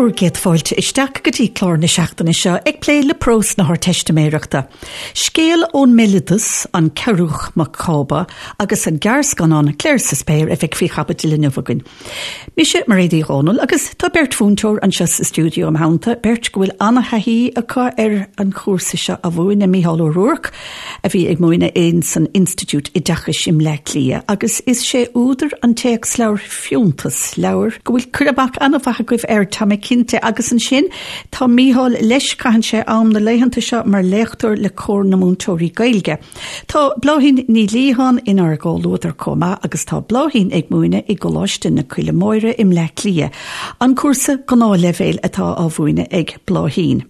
Bhur gcéad fáilte isteach go dtí clár na seachtaine seo ag plé le prós na hArdteistiméireachta. Scéal ón mbéaloideas, An Cearúch Mac Cába, agus an gearrscannán Clare sa Spéir a bheidh faoi chaibidil inniu againn. Mise Mairéad Uí Dhomhnaill agus tá beirt mhúinteoir anseo sa stiúideo im theannta, beirt go bhfuil an-thaithí acu ar an chúrsa seo a mhúineadh, Mícheál Ó Ruairc, a bhí ag múineadh in san Institiúid Oideachais i mBleá Cliath agus is sé údar an téacsleabhair Fiúntas, leabhar go bhfuil cur amach an-mhaith agaibh air, tá mé cinnte, agus ansin tá Mícheál leis, caitheann sé am na laethanta seo mar léachtóir le Comhar na Múinteoirí Gaeilge. Tá Bláithín Ní Liatháin inár gcomhluadar chomh maith agus tá Bláithín ag múineadh i gColáiste na Coille Móire i mBleá Cliath, an cúrsa gnáthleibhéil atá á mhúineadh ag Bláithín.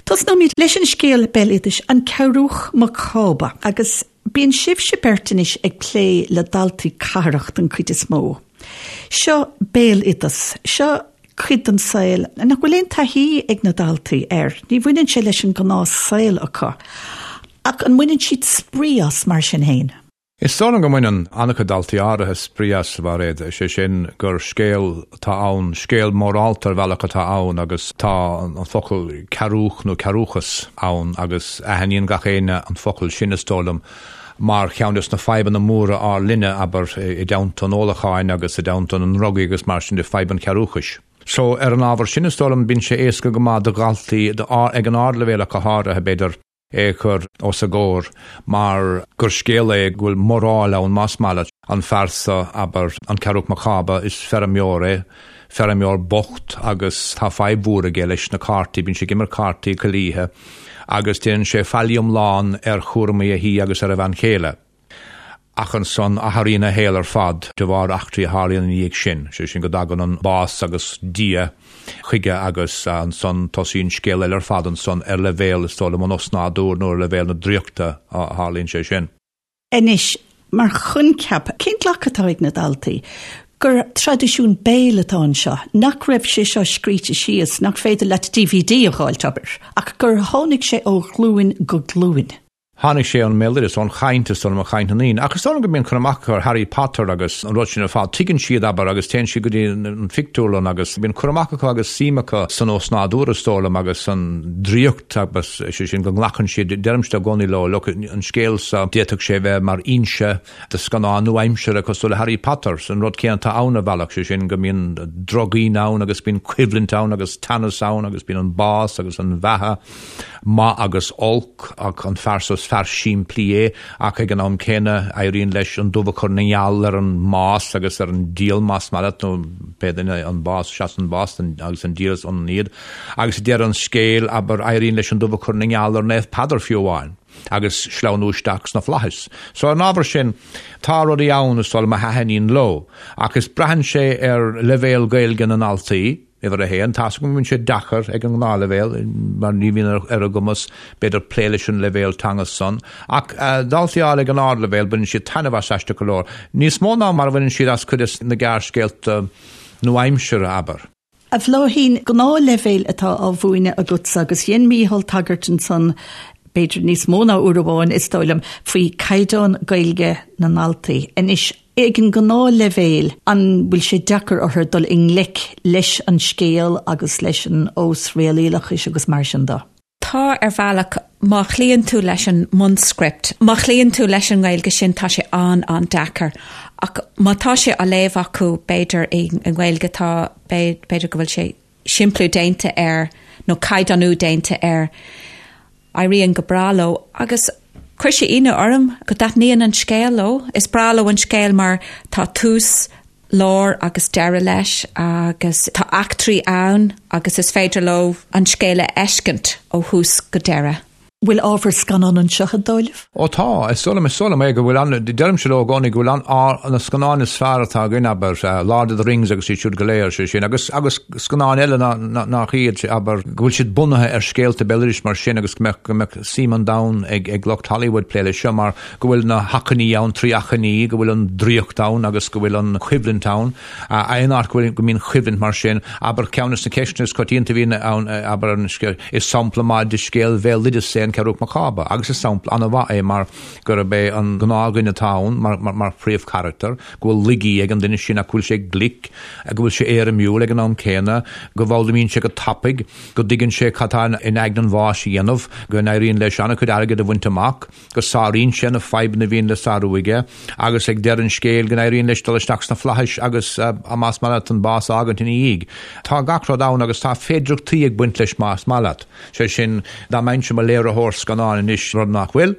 Tosnóimid leis an scéal béaloidis An Cearúch Mac Cába agus bíonn sibhse beirt anois ag plé le daltaí cathrach den chuid is mó. Seo béaloideas, seo cuid den saol nach bhfuil aon taithí ag na daltaí air, ní bhaineann sé leis an gnáth saol acu. Ach an mbaineann siad spraoi as mar sin féin? Is dóigh liom go mbaineann an-chuid daltaí áirithe spraoi as, a Mhairéad, is é sin gur scéal atá ann, scéal mórálta ar bhealach atá ann agus tá an focal cearúch nó cearúchas ann agus aithníonn gach éinne an focal sin, is dóigh liom, mar cheann des na fadhbanna móra ár linne, abair, i dteannta an ólacháin agus i dteannta na ndrugaí agus mar sin de, fadhb an chearúchais. So, ar an ábhar sin, is dóigh liom, bíonn sé éasca go maith do dhaltaí, ag an ardleibhéal ach go háirithe, b'fhéidir, é a chur os a gcomhair mar gur scéal é go bhfuil moráil ann, más maith leat. An fear seo, abair, an Cearúch Mac Cába, is feirmeoir é, feirmeoir bocht agus tá fadhb mhór aige leis na cártaí, bíonn sé ag imirt cártaí chuile oíche agus déanann sé faillí iomlán ar chúramaí a thí agus ar a bhean chéile. Ach ansan athraíonn a shaol ar fad de bharr eachtraí a tharlaíonn ina dhiaidh sin, sé sin go dtagann an bás agus Dia chuige agus ansan tosaíonn scéal eile ar fad ansan ar leibhéal, is dóigh liom, an osnádúir nó ar leibhéal na draíochta a tharlaíonn sé sin. Anois, mar choincheap, cén glacadh atá ag na daltaí gur traidisiún béil atá anseo, nach raibh sé seo scríte síos, nach féidir leat DVD a dh'fháilt, abair, ach gur tháinig sé ó ghlúin go glúin? Tháinig sé ón mbéaloideas, ón chaint, is dóigh liom, ó chaint na ndaoine. Ach is dóigh liom go mbíonn cur amach acu ar Harry Potter agus an rud sin ar fad. Tuigeann siad, abair, agus téann siad go dtí an phictiúrlann agus bíonn cur amach acu agus suim acu san osnádúr, is dóigh liom, agus san draíocht agus, sé sin, go nglacann siad, deirimse i gcónaí leo, look, an scéal seo, d'fhéadfadh sé bheith mar fhoinse do scannán nua-aimseartha cosúil le Harry Potter. An rud céanna atá ann ar bhealach, sé sin go mbíonn drochdhaoine ann agus bíonn coimhlint ann agus teannas ann agus bíonn an bás agus an bheatha, maith agus olc, ach an fear seo is fear simplí é ach ag an am céanna éiríonn leis an dubh a chur ina ngeal ar an mbás agus ar an diabhal más maith leat nó pé duine an bás, seasann an bás agus an diabhal is ionann iad. Agus ag deireadh an scéil, abair, éiríonn leis an dubh a chur ina ngeal ar Naomh Peadar fiú amháin. agus sleamhnú isteach sna flaithis. So ar an ábhar sin, tá rudaí ann is dóigh liom a thaitníonn leo, ach is braitheann sé ar leibhéal Gaeilge na ndaltaí, uimhir a haon. Tá's agam go mbíonn sé deacair ag an ngnáthleibhéal, mar ní bhíonn ar a gcumas, b'fhéidir, plé leis an leibhéal teanga san. Ach daltaí áirithe ag an ardleibhéal, baineann siad taitneamh as aisteach go leor. Níos mó ná mar a bhaineann siad as cuid de na gearrscéalta nua-aimseartha, abair. A Bhláithín, gnáthleibhéal atá á mhúineadh agatsa agus dhein Mícheál tagairt ansan, b'fhéidir níos mó ná uair amháin, is dóigh liom, faoi caighdeán Gaeilge na ndaltaí. Anois, ag an ngnáthleibhéal, an bhfuil sé deacair orthu dul i ngleic leis an scéal agus leis an osréalaíochas agus mar sin de? Tá, ar bhealach, má chloíonn tú leis an mbunscript, má chloíonn tú leis an nGaeilge sin, tá sé an-an-deacair. Ach má tá sé á léamh acu, b'fhéidir, i nGaeilge, tá, b'fhéidir go bhfuil sé simpliú déanta air nó caighdeánú déanta air, éiríonn go breá leo. Agus chuir sé ionadh orm go dtaitníonn an scéal leo. Is breá leo an scéal mar tá tús, lár agus deireadh leis agus tá eachtraí ann agus is féidir leo an scéal a fheiscint ó thús go deireadh. Bhfuil ábhar scannán anseo, an dóigh libh? Ó tá, is dóigh liom, is dóigh liom é go bhfuil an, deirimse leo i gcónaí go bhfuil an, na scannáin is fearr atá againn, abair, Lord of the Rings agus iad siúd go léir, sé sin, agus, agus scannáin eile ná, nach iad, abair, go bhfuil siad bunaithe ar scéalta béaloidis mar sin agus go mbeadh, go mbeadh suim an domhain ag, ag lucht Hollywood plé leis seo mar go bhfuil na hachainí ann, 3 achainí, go bhfuil an draíocht ann agus go bhfuil an choimhlint ann. Aon áit go bhfuil, go mbíonn coimhlint mar sin, abair, ceann de na ceisteanna is coitianta a bhíonn ann, abair, an scéal, is sampla maith de scéal bhéaloideas é. an Ceathrúch Mac Cába agus is sampla an-mhaith é mar gurb é an gnáthdhuine atá ann mar phríomhcharachtar, go bhfuil laigí ag an duine sin ach go bhfuil sé glic, go bhfuil sé éirimiúil ag an am céanna, go bhfoghlaimíonn sé go tapaidh, go dtuigeann sé cad tá in aigne an bháis a dhéanamh, go n-éiríonn leis an-chuid airgid a bhaint amach. go sáraíonn sé na fadhbanna a bhíonn le sárú aige agus ag deireadh an scéil go n-éiríonn leis dul isteach sna flaithis agus, más maith leat, an bás a fhágaint ina dhiaidh. Tá gach rud ann agus tá féidireachtaí ag baint leis más maith leat. Sé sin, dá mbeinnse i mo léiritheoir scannáin anois, rud nach bhfuil,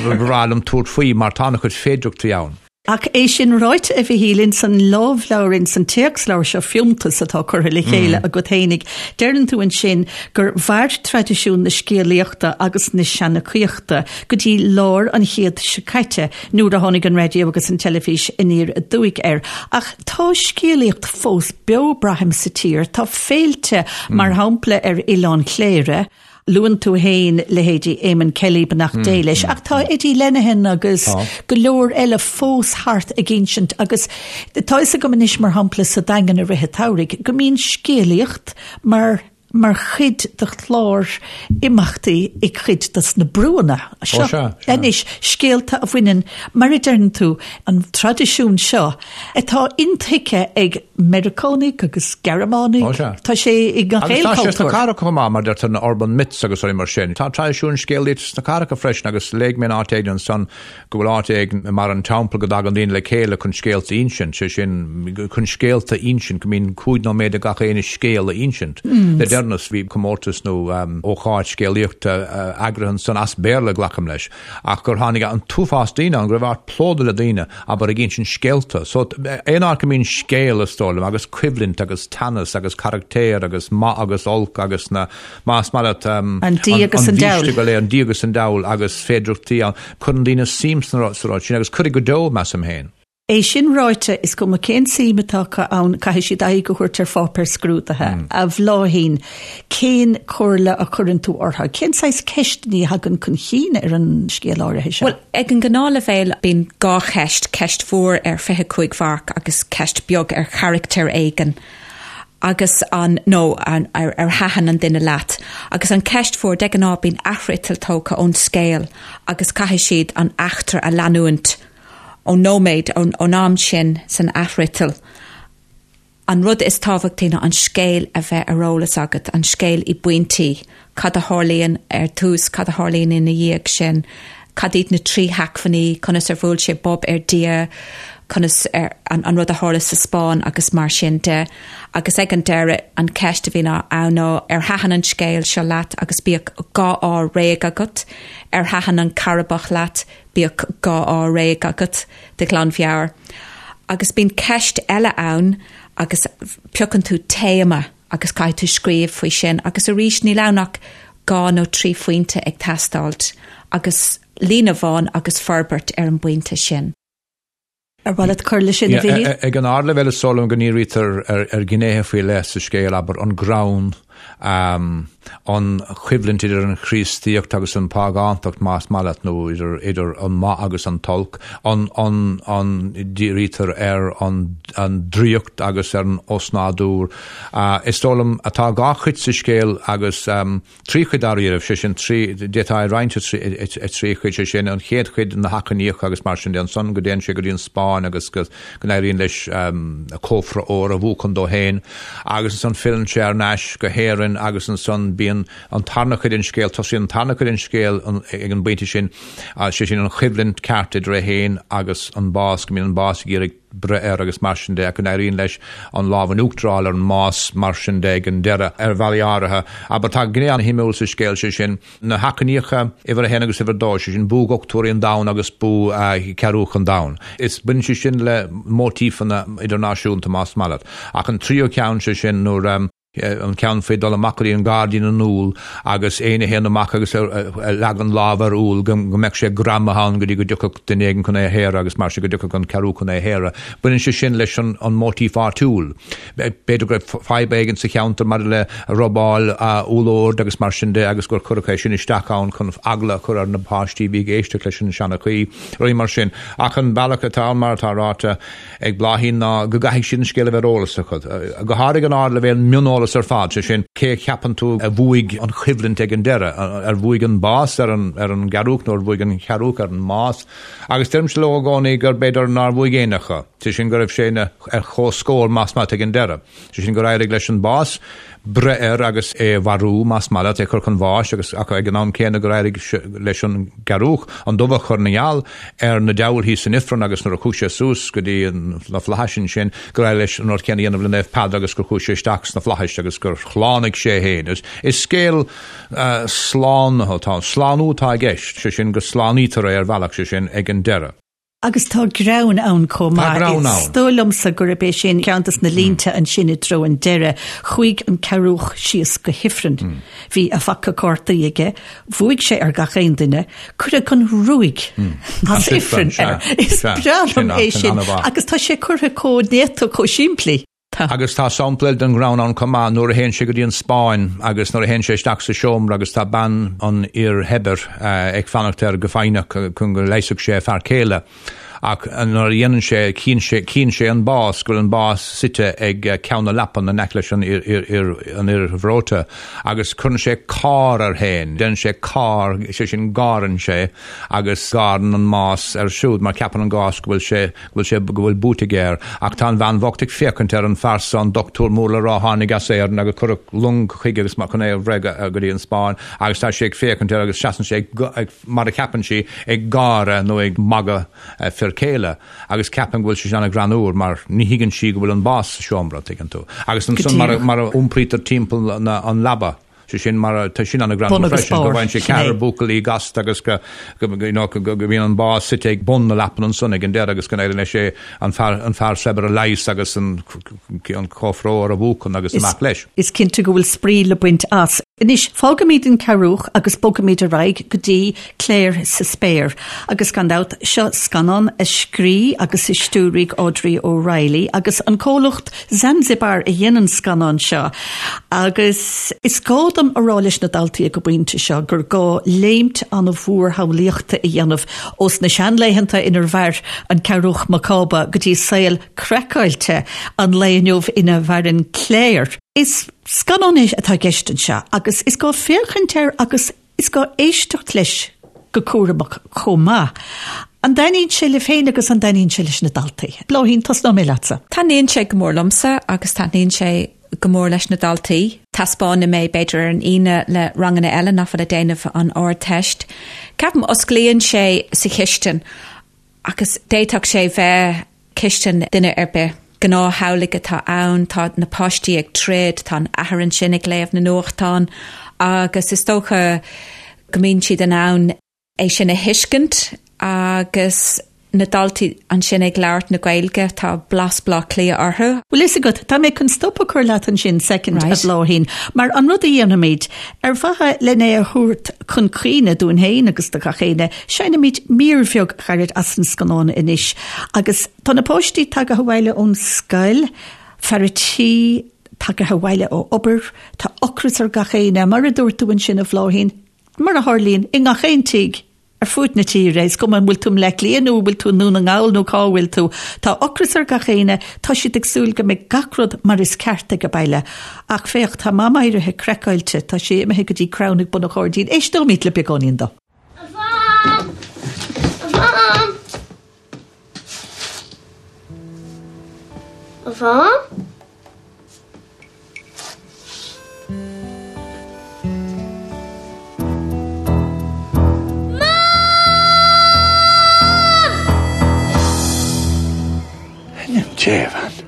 ba bhreá liom tabhairt faoi mar tá an-chuid féidireachtaí ann. Ach é sin ráite, a Mhichíl, ins an lámhleabhar, ins an téacsleabhar seo Fiúntas atá curtha le chéile agat fhéinig, deireann tú ansin gur mhair traidisiún na scéalaíochta agus na seanchaíochta go dtí lár an chéid seo caite nuair a tháinig an raidió agus an teilifís aniar aduaidh air. Ach tá scéalaíocht fós beo, braithim, sa tír. Tá féilte, mar shampla ar Oileán Chléire, Luann tú féin leithéidí Eamon Kelly, beannacht Dé leis, ach tá Eddie Lenihan agus go leor eile fós thart ag insint agus tá fhios agam anois, mar shampla, sa Daingean i rith an tsamhraidh, go mbíonn scéalaíocht mar mar chuid de chlár imeachtaí i gcuid dos na brúanna seo anois, scéalta a bhaineann, mar a deireann tú, an traidisiún seo atá intuigthe ag Meiriceánaigh agus Gearmánaigh. Ó sea. Tá sé i ngach Agus aon tá sé sna chultúr. cathracha chomh maith, mar deirtear na urban myths agus rudaí mar sin. Tá traidisiún scéalaíochta sna cathracha freisin agus léigh mé in áit éigin ansan go bhfuil áit éigin i mbarr an Teampaill go dtagann daoine le chéile chun scéalta a insint, sé sin chun scéalta a insint, go mbíonn cúig nóiméad ag gach éinne scéal a insint. Le deireanas bhí comórtas nó ócáid scéalaíochta eagraithe ansan as Béarla, glacaim leis. ach gur tháinig an t-uafás daoine ann, go raibh áit plódaithe le daoine, abair, ag insint scéalta. So, aon áit go mbíonn scéal, is dóigh liom, agus coimhlint agus teannas agus carachtair agus maith agus olc agus na, más maith leat, An dia agus an an diabhal. go léir, an dia agus an diabhal agus féidireachtaí ann, cuireann daoine suim sa rud sin agus cuirfidh go deo, measaim féin. É sin ráite, is cuma cén tsuim atá acu ann, caithfidh siad aghaidh a thabhairt ar pháipéar scrúdaithe. A Bhláithín, cén chomhairle a chuireann tú orthu? Cén saghas ceisteanna a thagann chun chinn ar an scéal áirithe seo? Bhuel, ag an ngnáthleibhéal bíonn dhá cheist, ceist mhór ar 25 mharc agus ceist beag ar charachtar éigin agus an, nó an, ar, ar thaitin an duine leat. Agus an ceist mhór, de ghnáth bíonn athfhriotal tógtha ón scéal agus caithfidh siad an eachtra a leanúint. ón nóiméad, ón am sin san athfhriotal. An rud is tábhachtaí ná an scéal a bheith ar eolas agat, an scéal i bpointí, cad a tharlaíonn ar tús, cad a tharlaíonn ina dhiaidh sin, cad iad na trí hacmhainní, conas ar bhuail sé bob ar Dia, conas ar, an, an rud a tharla sa Spáinn agus mar sin de. Agus ag an deireadh, an ceist a bhíonn ann ná ar thaitin an scéal seo leat agus bíodh dhá ádh réidh agat, ar thaitin an Cearrbhach leat, Bíodh dhá ádh réidh agat de ghlanmheabhair. Agus bíonn ceist eile ann agus piocann tú téama agus caithfidh tú scríobh faoi sin agus arís níl ann ach dhá nó trí phointe ag teastáilt agus líne amháin agus forbairt ar an bpointe sin. Ar mhaith leat cur leis sin, a Mhichíl? Ag an ardleibhéal is dóigh liom go ndírítear ar ghnéithe faoi leith sa scéal, abair, an greann, an choimhlint idir an Chríostaíocht agus an phágántacht, más maith leat, nó idir an maith agus an t-olc, an dírítear ar an draíocht agus ar an osnádúr. Is dóigh liom, tá dhá chuid sa scéal agus. Trí chuid dáiríribh, sé sin, trí, d'fhéadfá é a roinnt i trí chuid, sé sin, an chéad chuid, na hachainíocha agus mar sin de, ansan go dtéann sé go dtí an Spáinn agus go n-éiríonn leis cófra óir a bhuachan dó féin agus ansan filleann sé thar n-ais go hÉirinn agus ansan bíonn an tarna cuid den scéal, tosaíonn an tarna cuid den scéal ag an bpointe sin, sé sin an choimhlint ceart idir é féin agus an bás, go mbíonn an bás ag iarraidh breith air agus mar sin de, ach go n-éiríonn leis an lámh in uachtar a fháil ar an mbás mar sin de ag an deireadh, ar bhealaí áirithe. Abair, tá gné an-shuimiúil sa scéal, sé sin, na hachainíocha uimhir a haon agus uimhir a dó, sé sin, buaidh dhochtúirí an domhain agus buaidh Cearúch an domhain. Is baineann sé sin le móitífeanna idirnáisiúnta, más maith leat. Ach an tríú ceann, sé sin, nuair. an ceann faoi dul amach go dtí an gairdín na n-úll agus éinne a théann amach agus a leagann lámh ar úll go mbeadh sé greamaithe ann go dtí go dtiocfadh duine éigin chun é a shaoradh agus mar sin go dtiocfadh an cearúch chun é a shaoradh. Baineann sé sin leis an móitíf áitiúil. B'fhéidir go raibh fadhb éigin sa cheantar maidir le robáil úllord agus mar sin de agus gur cuireadh é sin isteach ann chun eagla a chur ar na páistí a bhí ag éisteacht leis an seanchaí, rudaí mar sin. Ach an bealach atá ann mar atá ráite, ag Bláithín ná go gcaithfidh siad an scéal a bheith ar eolas acu. Go háirithe ag an ardleibhéal, mioneolas. aiseolas ar fad, sé sin, cé a cheapann tú a bhuaigh an choimhlint ag an deireadh, ar bhuaigh an bás ar an ar an gcearúch nó ar bhuaigh an chearúch ar an mbás? Agus deirimse leo i gcónaí gur b'fhéidir nár bhuaigh éinne acu, sé sin go raibh sé ina ar comhscór más maith leat ag an deireadh. Sé sin gur éirigh leis an bás breith air agus é a mharú, más maith leat, é a chur chun bháis agus ach ag an am céanna gur éirigh leis an gcearúch an dubh a chur ina gheal ar na diabhail thíos san ifreann agus nuair a chuaigh sé suas go dtí na flaithis ansin gur éirigh leis an rud céanna a dhéanamh le Naomh Peadar agus gur chuaigh sé isteach sna flaithis agus gur shlánaigh sé é féin. Is scéal slánaithe atá ann. Slánú atá i gceist, sé sin go slánaítear é ar bhealach, sé sin ag an deireadh. Agus tá greann ann chomh maith. Tá greann ann. Is dóigh liomsa gurb é sin ceann des na línte ansin i dtreo an deireadh. Chuaigh an cearúch síos go hifreann. Bhí a phaca cártaí aige. Bhuaigh sé ar gach aon duine. Cuireadh an ruaig as ifreann air. Is breá liom é sin. Agus tá sé curtha chomh néata, chomh simplí. Tá. Agus tá sampla eile den ghreann ann chomh maith, nuair a théann sé go dtí an Spáinn agus nuair a théann sé isteach sa seomra agus tá bean an fhir shaibhir ag fanacht air go foighneach chun go leigheasfadh sé a fear céile. Ach nuair a dhéanann sé, chíonn sé, chíonn sé an bás, go bhfuil an bás suite ag ceann na leapan in aice leis an fhir, an fhir bhreoite agus cuireann sé cár air féin, déanann sé cár, sé sin gáireann sé agus gáireann an mbás air siúd mar ceapann an bás go bhfuil sé, go bhfuil sé, go bhfuil buaite aige air. Ach tá an bhean bhocht ag féachaint ar an fear so, an dochtúir mór le rá a tháinig as Éirinn agus cuireadh long chuige agus chun é a bhreith go dtí an Spáinn agus tá sí ag féachaint air agus seasann sé ag, mar a cheapann sí, ag gáire nó ag magadh a fir céile agus ceapann go bhfuil sé sin an-ghreannúr mar ní thuigeann sí go bhfuil an bás sa seomra, tuigeann tú. Agus ansan mar a iompraítear timpeall an leaba. Sé sin mar tá sin an-ghreannmhar freisin, go bhfaigheann sé ceathrar buachaillí gasta agus go you know go mbíonn an bás suite ag bun na leapan ansan ag an deireadh agus go n-éiríonn leis é an fear an fear saibhir a leigheas agus an an cófra óir a bhuachan agus amach leis. Is cinnte go bhfuil spraoi le baint as. Anois, fágaimid an Cearúch agus bogaimid ar aghaidh go dtí Clare sa Spéir. Agus gan dabht, seo scannán a scrígh agus a stiúraigh Audrey O'Reilly agus an comhlacht Zanzibar a dhein an scannán seo agus is gá dom a rá leis na daltaí ag an bpointe seo gur gá léimt an-mhór shamhlaíochta a dhéanamh ós na seanlaethanta inar mhair an Cearúch Mac Cába go dtí saol craiceáilte an lae inniu ina mhaireann Clare. Is scannán é atá i gceist anseo agus is gá féachaint air agus Is gá éisteacht leis go cúramach chomh maith. An dtaitníonn sé libh féin agus an dtaitníonn sé leis na daltaí? Bláithín, tosnóidh mé leatsa. Taitníonn sé go mór liomsa agus taitníonn sé go mór leis na daltaí. Taispeánaim é b'fhéidir ar an Aoine le ranganna eile nach bhfuil ag déanamh an Ardteist. Ceapaim osclaíonn sé sa chistin Agus d'fhéadfadh sé bheith cistin duine ar bith. Gnáth-theaghlaigh atá ann, tá na páistí ag troid, tá an athair ansin ag léamh na nuachtán agus is dócha go mbíonn siad in ann é sin a thuiscint agus na daltaí ansin ag labhairt na Gaeilge, tá blas Bleá Cliath orthu. Bhfuil fhios agat, tá mé chun stop a chur leat ansin soicind, a Bhláithín, mar an rud a dhéanfaimid, ar mhaithe len é a thabhairt chun cuimhne dúinn féin agus do gach éinne, Seinnimid mír bheag ghairid as an scannán anois agus tá na páistí tagaithe abhaile ón scoil, fear a' tí tagaithe abhaile ó obair, tá ocras ar gach éinne, mar a dúirt tú ansin a Bhláithín, mar a tharlaíonn i ngach aon tigh ar fuaid na tíre, is cuma an bhfuil tú i mBleá Cliath nó an bhfuil tú i nDún na nGall nó cá bhfuil tú, tá ocras ar gach éinne, tá siad ag súil go mbeidh gach rud mar is ceart ag baile. Ach féach, tá Mam éirithe craiceáilte, tá sí imithe go dtí crann ag bun an ghairdín, éisteoimid le beagáinín dó. A Mham! A Mham! A Mham? Mam! In ainm Dé, a bhean.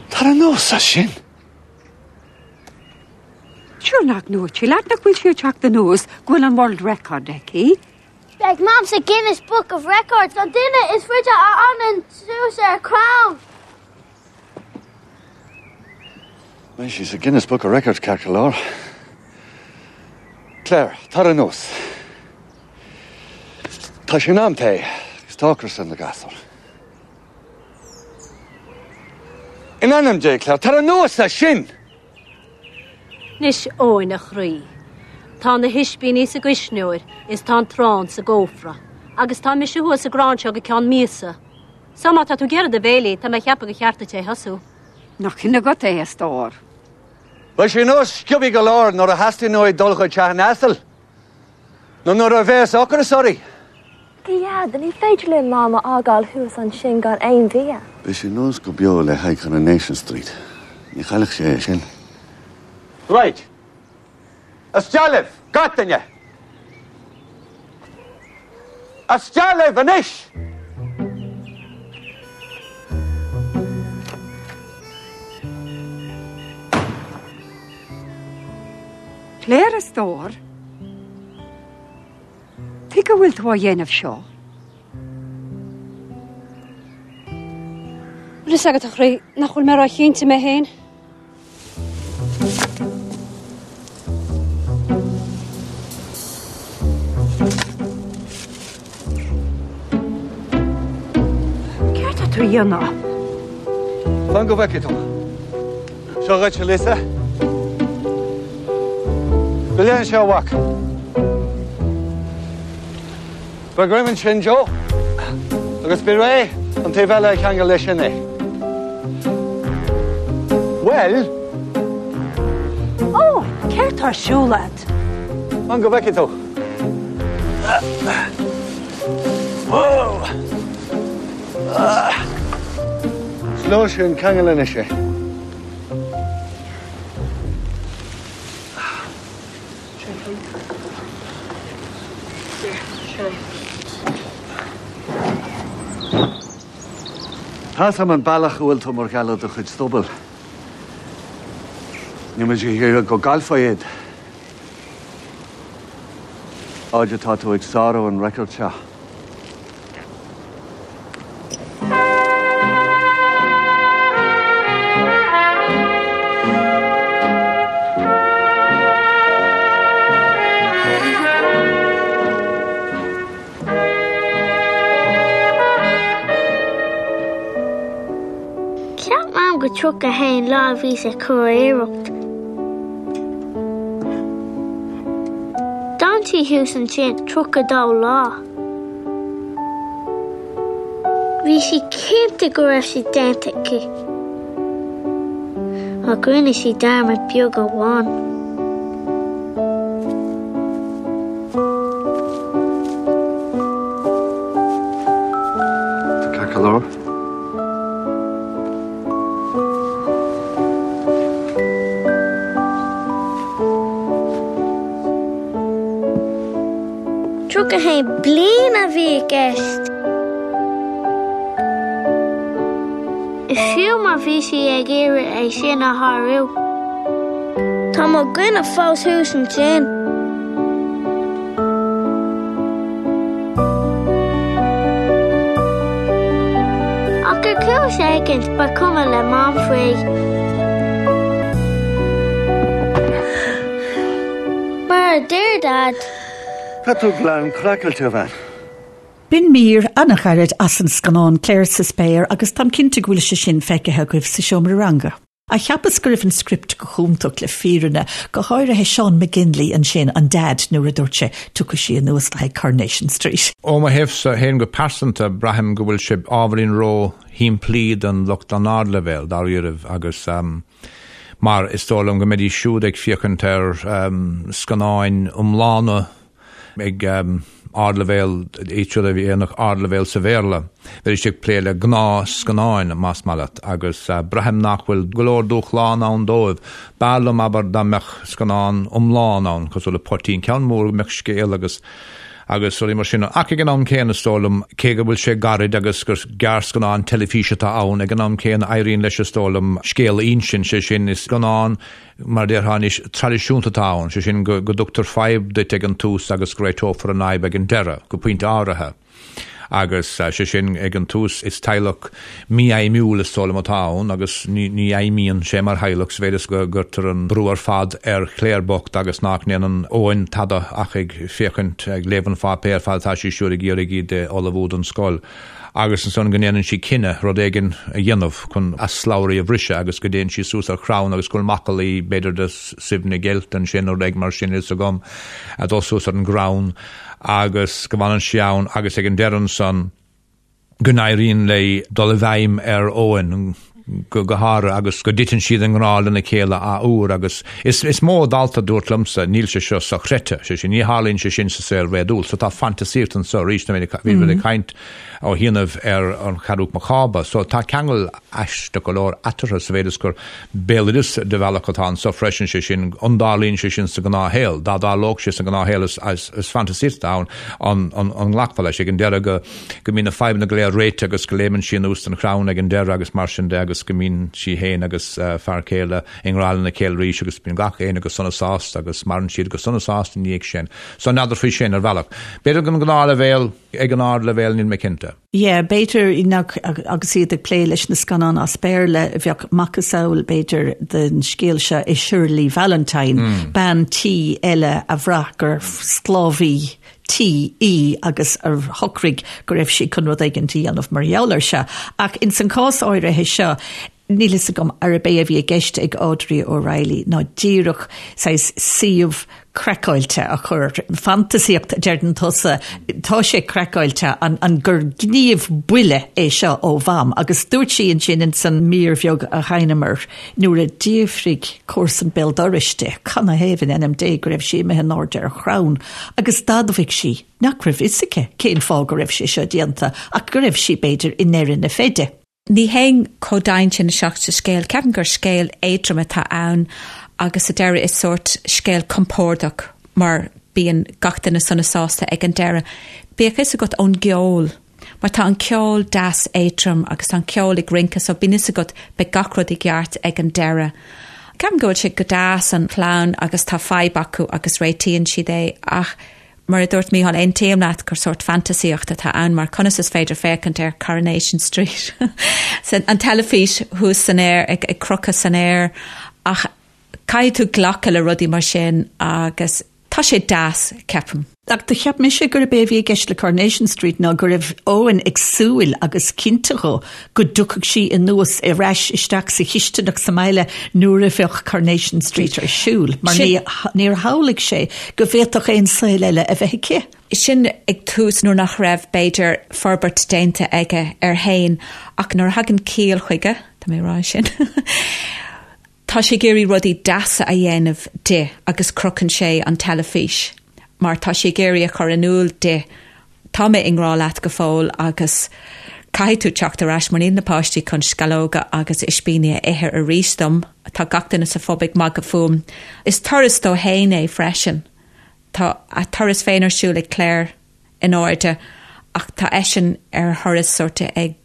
Tar anuas as sin. Sure nach ndúirt sí leat nach bhfuil sí ag teacht anuas go bhfuil an world record aici? Beidh Mam sa Guinness Book of Records, an duine is faide a fhanann suas ar chrann. Beidh sí sa Guinness Book of Records ceart go leor. Claire, tar anuas. Tá sé in am tae agus tá ocras ar na gasúir. In ainm Dé, Claire, tar anuas as sin! Anois, Eoin, a chroí. Tá na hispíní sa gcuisneoir is tá an t-arán sa gcófra. Agus tá mise thuas sa gcrann seo go ceann míosa. So má tá tú ag iarraidh do bhéilí, tá mé ag ceapadh gur cheart duit é a thosú. Nach shin agat é, a stór. Beidh sé anuas sciobthaí go leor nuair a theastaíonn uaidh dul chuig teach an asail nó nuair a bheas ocras uirthi. A Dhaid, ní féidir linn Mam a fhágáil thuas ansin gan aon bhia. Beidh sé anuas go beo le haghaidh Coronation Street. Ní chaillfeadh sé é sin. Right. Isteach libh, gach duine! Isteach libh anois! Claire, a stór. Tuige a bhfuil tú á dhéanamh seo? Bhfuil fhios agat, a chroí, nach bhfuil mé ró-chinnte mé féin? Céard tá tú a dhéanamh? Fan go bhfeicfidh tú. Seo dhuit, a Lisa. Gabh i leith anseo, a mhac. Faigh greim ansin, Joe, agus bí réidh an taobh eile a cheangal leis sin é. Bhuel? Ó, céard tá ar siúl agat? Fan go bhfeicfidh tú. Is leor sin, ceangail anois é. Tá's a'm an bealach a bhfuil tú mar gheall ar do chuid stuball. Níl muid ag iarraidh go gcaillfeá iad. Fhad atá tú ag sárú an record seo. Cheap Mam go 31 lá a bhí sa churiarracht. D'fhan sí thuas ansin 32 lá. Bhí sí cinnte go raibh sé déanta aici. Ach rinne sí dearmad beag amháin. Tá ceart go leor. 31 bliain a bhí i gceist. Fiú má bhí sí ag iarraidh é sin a shárú. Tá mo dhuine fós thuas ansin. Ach ar chúis éigin ba chuma le Mam faoi. Mar a deir Daid. Tá tú glan craiceáilte, a bhean. B'in mír an-ghairid as an scannán Claire sa Spéir agus táim cinnte go bhfuil sé sin feicthe agaibh sa seomra ranga. Ach cheapas go raibh an script go hiontach le fírinne, go háirithe Seán McGinley ansin, an Dad, nuair a dúirt sé, tiocfaidh sí anuas le haghaidh Coronation Street. Ó mo thaobhsa féin go pearsanta, braithim go bhfuil sé ábhairín ró-shimplí don lucht an ardleibhéil, dáiríribh, agus mar is dóigh liom go mbeidís siúd ag féachaint ar scannáin iomlána ag ardleibhéal, iad siúd a dhéanfadh ardleibhéal sa Bhéarla, bheidís ag plé le gnáthscannáin, más maith leat, agus braithim nach bhfuil go leor dúshlán ann dóibh. B'fhearr liom, abair, dá mbeadh scannán iomlán ann, cosúil le Poitín, ceann mór go mbeadh scéal agus agus rudaí mar sin. Ach ag an am céanna, is dóigh liom, cé go bhfuil sé gairid agus gur gearrscannán teilifíse atá ann, ag an am céanna éiríonn leis, is dóigh liom, scéal a insint, sé sin, is scannán, mar a déarfá anois, traidisiúnta atá ann, sé sin, go dtugtar fadhb duit ag an tús agus go réiteofar an fhadhb ag an deireadh, go pointe áirithe. Agus, sé sin, ag an tús is teaghlach mífheidhmiúil is dóigh liom atá ann agus ní fheidhmíonn sé mar theaghlach sa mhéid is go gcuirtear an brú ar fad ar Claire bocht agus nach ndéanann Eoin tada ach ag féachaint, ag léamh an pháipéir fad atá sí siúd ag iarraidh iad a ullmhú don scoil. Agus ansan go ndéanann sí cinneadh rud éigin a dhéanamh chun a slabhraí a bhriseadh agus go dtéann sí suas ar chrann agus go bhfuil macallaí b'fhéidir de Suibhne Geilt ansin nó rud éigin mar sin, fhios agam, ag dul suas ar an gcrann agus go bhfanann sí ann agus ag an deireadh ansan go n-éiríonn léi dul i bhfeidhm ar Eoin. go háirithe agus go dtiteann siad i ngrá lena chéile athuair agus is is mó dalta a dúirt liomsa níl sé seo sochreidte, sé sin, ní tharlaíonn sé sin sa saol réadúil. So tá fantasaíocht anseo arís, bhí muid ag caint ó chianaibh ar An Ceathrú Cába. So tá ceangal aisteach go leor eatarthu sa mhéid is gur béaloideas de bhealach atá anseo freisin, sé sin, an dtarlaíonn sé sin sa ghnáthshaol? Dá dtarlódh sé sa ghnáthshaol is fantasaíocht atá ann, an nglacfá leis ag an deireadh go go mbíonn na fadhbanna go léir réitithe agus go léimeann sí anuas den chrann ag an deireadh agus mar sin de agus go mbíonn sí féin agus fear céile i ngrá lena chéile arís agus bíonn gach éinne go sona sásta agus maireann siad go sona sásta ina dhiaidh sin. So n'fheadar faoi sin ar bhealach. B'fhéidir ag an ngnáthleibhéal, ag an ardleibhéal níl mé cinnte. Yeah, b'fhéidir nach agus iad ag plé leis na scannáin as Béarla, bheadh macasamhail b'fhéidir den scéal seo i Shirley Valentine, bean tí eile a bhraith gur sclábhaí tí í agus a shocraigh go raibh sí chun rud éigin a dhéanamh mar gheall air seo. Ach ins an chás áirithe seo, níl fhios agam arb é a bhí i gceist ag Audrey O'Reilly ná díreach saghas suíomh craiceáilte a chur, fantasaíocht a deireann tusa, tá sé craiceáilte, an, an gur gníomh buile é seo ó Mham agus dúirt sí ansin ins an mír bheag a sheinneamar nuair a d'fhiafraigh comharsan béal dorais di canathaobh in ainm Dé go raibh sí imithe in airde ar chrann agus d'admhaigh sí nach raibh fhios aici cén fáth go raibh sé seo déanta ach go raibh sí b'fhéidir i ndeireadh na feide. Ní théim chomh domhain sin isteach sa scéal. Ceapaim gur scéal éadrom atá ann agus sa deireadh is sórt scéal compordach mar bíonn gach duine sona sásta ag an deireadh. Bíodh fhios agat ón gceol mar tá an ceol deas éadrom agus tá an ceol ag rince so bíonn fhios agat beidh gach rud i gceart ag an deireadh. Ceapaim go bhfuil sé go deas an chlann agus tá fadhb acu agus réitíonn siad é ach Mar a dúirt Mícheál, aontaím leat gur sórt fantasaíocht atá ann mar conas is féidir féachaint ar Coronation Street an teilifís thuas san aer ag crochadh san aer ach caithfidh tú glacadh le rudaí mar sin agus tá sé deas, ceapaim. Ach do cheap mise gurb é a bhí i gceist le Coronation Street ná go raibh Eoin ag súil agus cinnte dhó go dtiocfadh sí anuas ar ais isteach sa chisteanach sa mbaile nuair a bheadh Coronation Street ar siúl, mar níor shamhlaigh sé go bhféadfadh aon saol eile a bheith aici. Sin ag tús nuair nach raibh, b'fhéidir, forbairt déanta aige air fhéin ach nuair a thagann ciall chuige, tá mé ag rá sin, tá sé ag iarraidh rudaí deasa a dhéanamh di agus crochann sé an teilifís mar tá sé ag iarraidh a chur in iúl di Tá mé i ngrá leat go fóill agus caithfidh tú teacht ar ais mar níl na páistí chun sceallóga agus ispíní a ithe arís dom. Tá gach duine sa phub ag magadh fúm. Is turas dó fhéin é freisin. Tá a turas féin ar siúl ag Claire in airde ach tá eisean ar thuras sórt ag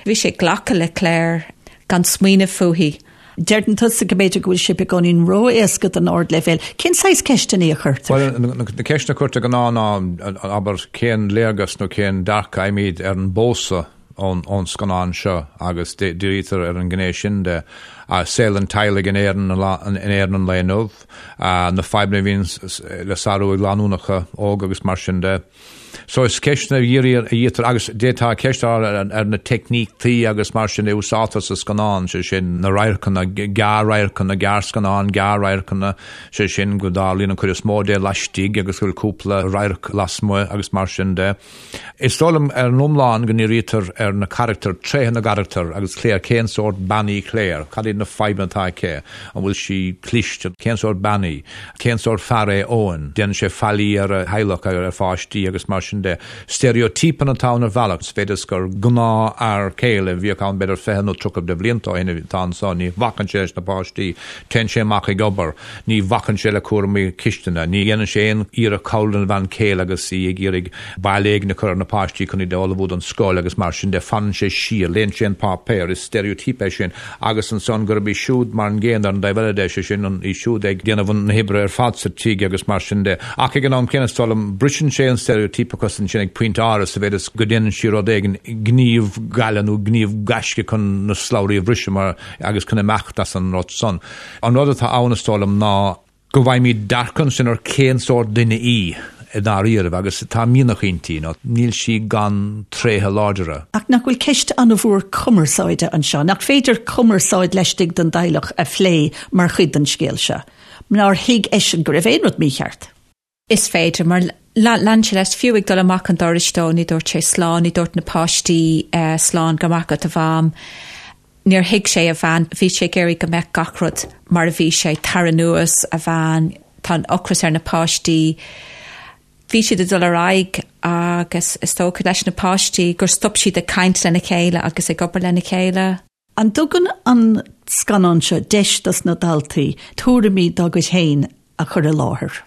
Bhí sé ag glacadh le Claire gan smaoineamh fúithi. Deireann tusa go mb'fhéidir go bhfuil sé beagáinín ró-éasca don ardleibhéal. Cén saghas ceisteanna a chuirtear? Bhuel, na ceisteanna a chuirtear de ghnáth ná, abair, cén léargas nó cén dearcadh a fhaighimid ar an bpósadh ón scannán seo agus dírítear ar an ngné sin de saol an teaghlaigh in Éirinn in Éirinn an lae inniu, na fadhbanna a bhíonn le sárú ag lánúnacha óga agus mar sin de. So is ceisteanna a dhírítear agus d'fhéadfá ceist a chur ar na teicníochtaí agus mar sin a úsáidtear sa scannán, sé sin na radharcanna, gearr-radharcanna, gearrscannán, gearr-radharcanna, sé sin go dtarlaíonn an chuid is mó de laistigh agus go bhfuil cúpla radharc lasmuigh agus mar sin de. Is dóigh liom ar an iomlán go ndírítear ar na carachtair, tréithe na gcarachtar agus Claire, cén sórt bean í Claire, cad iad na fadhbanna atá aici, an bhfuil sí cliste, cén sórt bean í. Cén sórt fear é Eoin? Déanann sé faillí ar a theaghlach, ar a pháistí agus mar sin de. Steiréitípeanna atá ann ar bhealach, sa mhéid is gur gnáthfhear céile a bhíodh ann b'fhéidir 20 nó 30 de bhlianta ó shin atá anso. Ní bhacann sé leis na páistí, téann sé amach ag obair, ní bhacann sé le cúraimí cistine, ní dhéanann sé aon iarracht cabhrú lena bhean chéile agus í ag iarraidh bail éigin a chur ar na páistí chun iad a ullmhú don scoil agus mar sin de. Fanann sé siar, léann sé an páipéar, is steiréitíp é sin. agus ansan gurb í siúd mar an gcéanna ar an dtaobh eile de, sé sin, í siúd ag déanamh na hoibre ar fad sa tigh agus mar sin de. Ach ag an am céanna, is dóigh liom, briseann sé an steiréitípeachas ansin ag pointe áirithe sa mhéid is go ndéanann sí rud éigin, gníomh gaile nó gníomh gaisce chun na slabhraí a bhriseadh mar, agus chun imeacht as an rud san. An rud atá ann, is dóigh liom, ná. go bhfaighimid dearcadh ansin ar cén sórt duine í i ndáiríribh agus tá mianach inti, nó níl sí gan tréithe láidre. Ach nach bhfuil ceist an-mhór cumarsáide anseo? Nach féidir cumarsáid laistigh den dteaghlach a phlé mar chuid den scéal seo? Nár thuig eisean go raibh aon rud mícheart? Is féidir, mar lean sé leis, fiú ag dul amach an dorais dó, ní dúirt sé slán, ní dúirt na páistí slán, go raibh maith agat a mham. Níor thuig sé a bhean, bhí sé ag iarraidh go mbeadh gach rud mar a bhí sé, tar anuas, a bhean, tá an ocras ar na páistí. Bhí siad ag dul ar aghaidh agus is dócha leis na páistí gur stop siad ag caint lena chéile agus ag obair lena chéile. An dtugann an scannán seo deis dos na daltaí tuairimí dá gcuid féin a chur i láthair?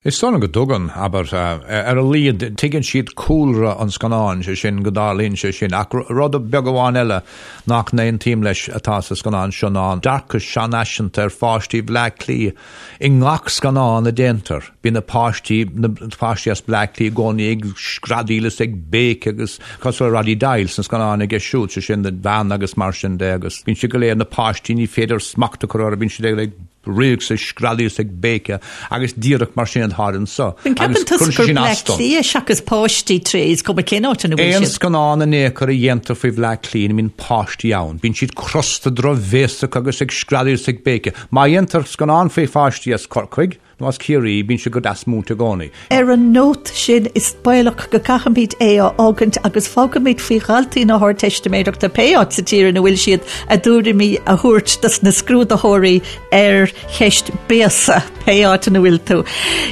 Is dóigh liom go dtugann, abair, ar a laghad tuigeann siad cúlra an scannáin, sé sin, go dtarlaíonn sé sin. Ach rud beag amháin eile nach n-aontaím leis atá sa scannán seo ná an dearcadh seanfhaiseanta ar pháistí Bhleá Cliath. I ngach scannán a déantar, bíonn na páistí, na páistí as Bleá Cliath i gcónaí ag screadaíl is ag béiceadh agus cosúil le Roddy Doyle sna scannáin aige siúd, sé sin, an bhean agus mar sin de agus bíonn siad go léir, na páistí, ní féidir smacht a chur orthu, bíonn siad ag rith is ag screadaíl is ag béiceadh agus díreach mar sin atá anseo. An gceapann tusa gur Bleá Cliath seachas páistí tré is cuma cén áit ina bhfuil siad? Aon scannán in aon chor a dhéantar faoi Bhleá Cliath ní bhíonn páistí ann. Bíonn siad crosta drochbhéasach agus ag screadaíl is ag béiceadh. Má dhéantar scannán faoi pháistí as Corcaigh, nó as Ciarraí, bíonn siad go deas múinte i gcónaí. Ar an nóta sin, is baolach go gcaithfimid é a fhágaint agus fágfaimid faoi dhaltaí na hArdteistiméireachta, pé áit sa tír ina bhfuil siad, a dtuairimí a thabhairt dos na scrúdaitheoirí ar cheist béasa, pé áit ina bhfuil tú.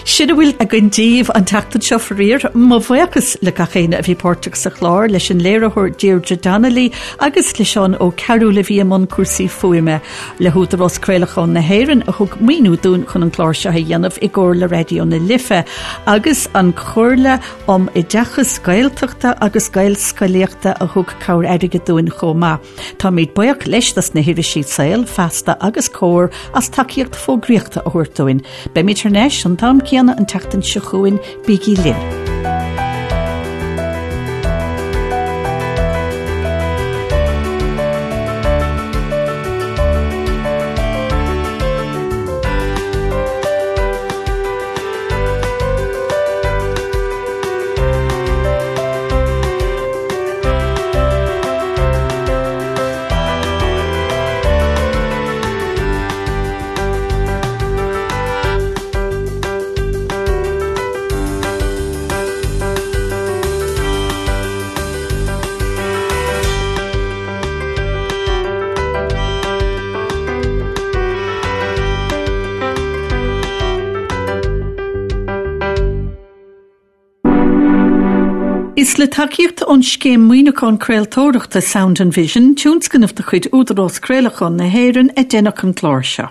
Sin a bhfuil againn daoibh an tseachtain seo, faraor. Mo bhuíochas le gach éinne a bhí páirteach sa chlár, leis an léiritheoir Deirdre Donnelly agus le Seán Ó Cearúil a bhí i mbun cúrsaí fuaime. Le hÚdarás Craolacháin na hÉireann a thug maoiniú dúinn chun an clár seo a dhéanamh i gcomhar le Raidió na Life agus an Chomhairle um Oideachas Gaeltachta agus Gaelscolaíochta a thug cabhair airgid dúinn chomh maith. Táimid buíoch leis dos na hirisí Saol, Feasta agus Comhar as tacaíocht fógraíochta a thabhairt dúinn. Beimid thar n-ais an t-am céanna an tseachtain seo chugainn, bígí linn! Is le tacaíocht ón Scéim Maoiniúcháin Craoltóireachta Sound and Vision, tionscnamh de chuid Údarás Craolacháin na hÉireann, a deineadh an clár seo.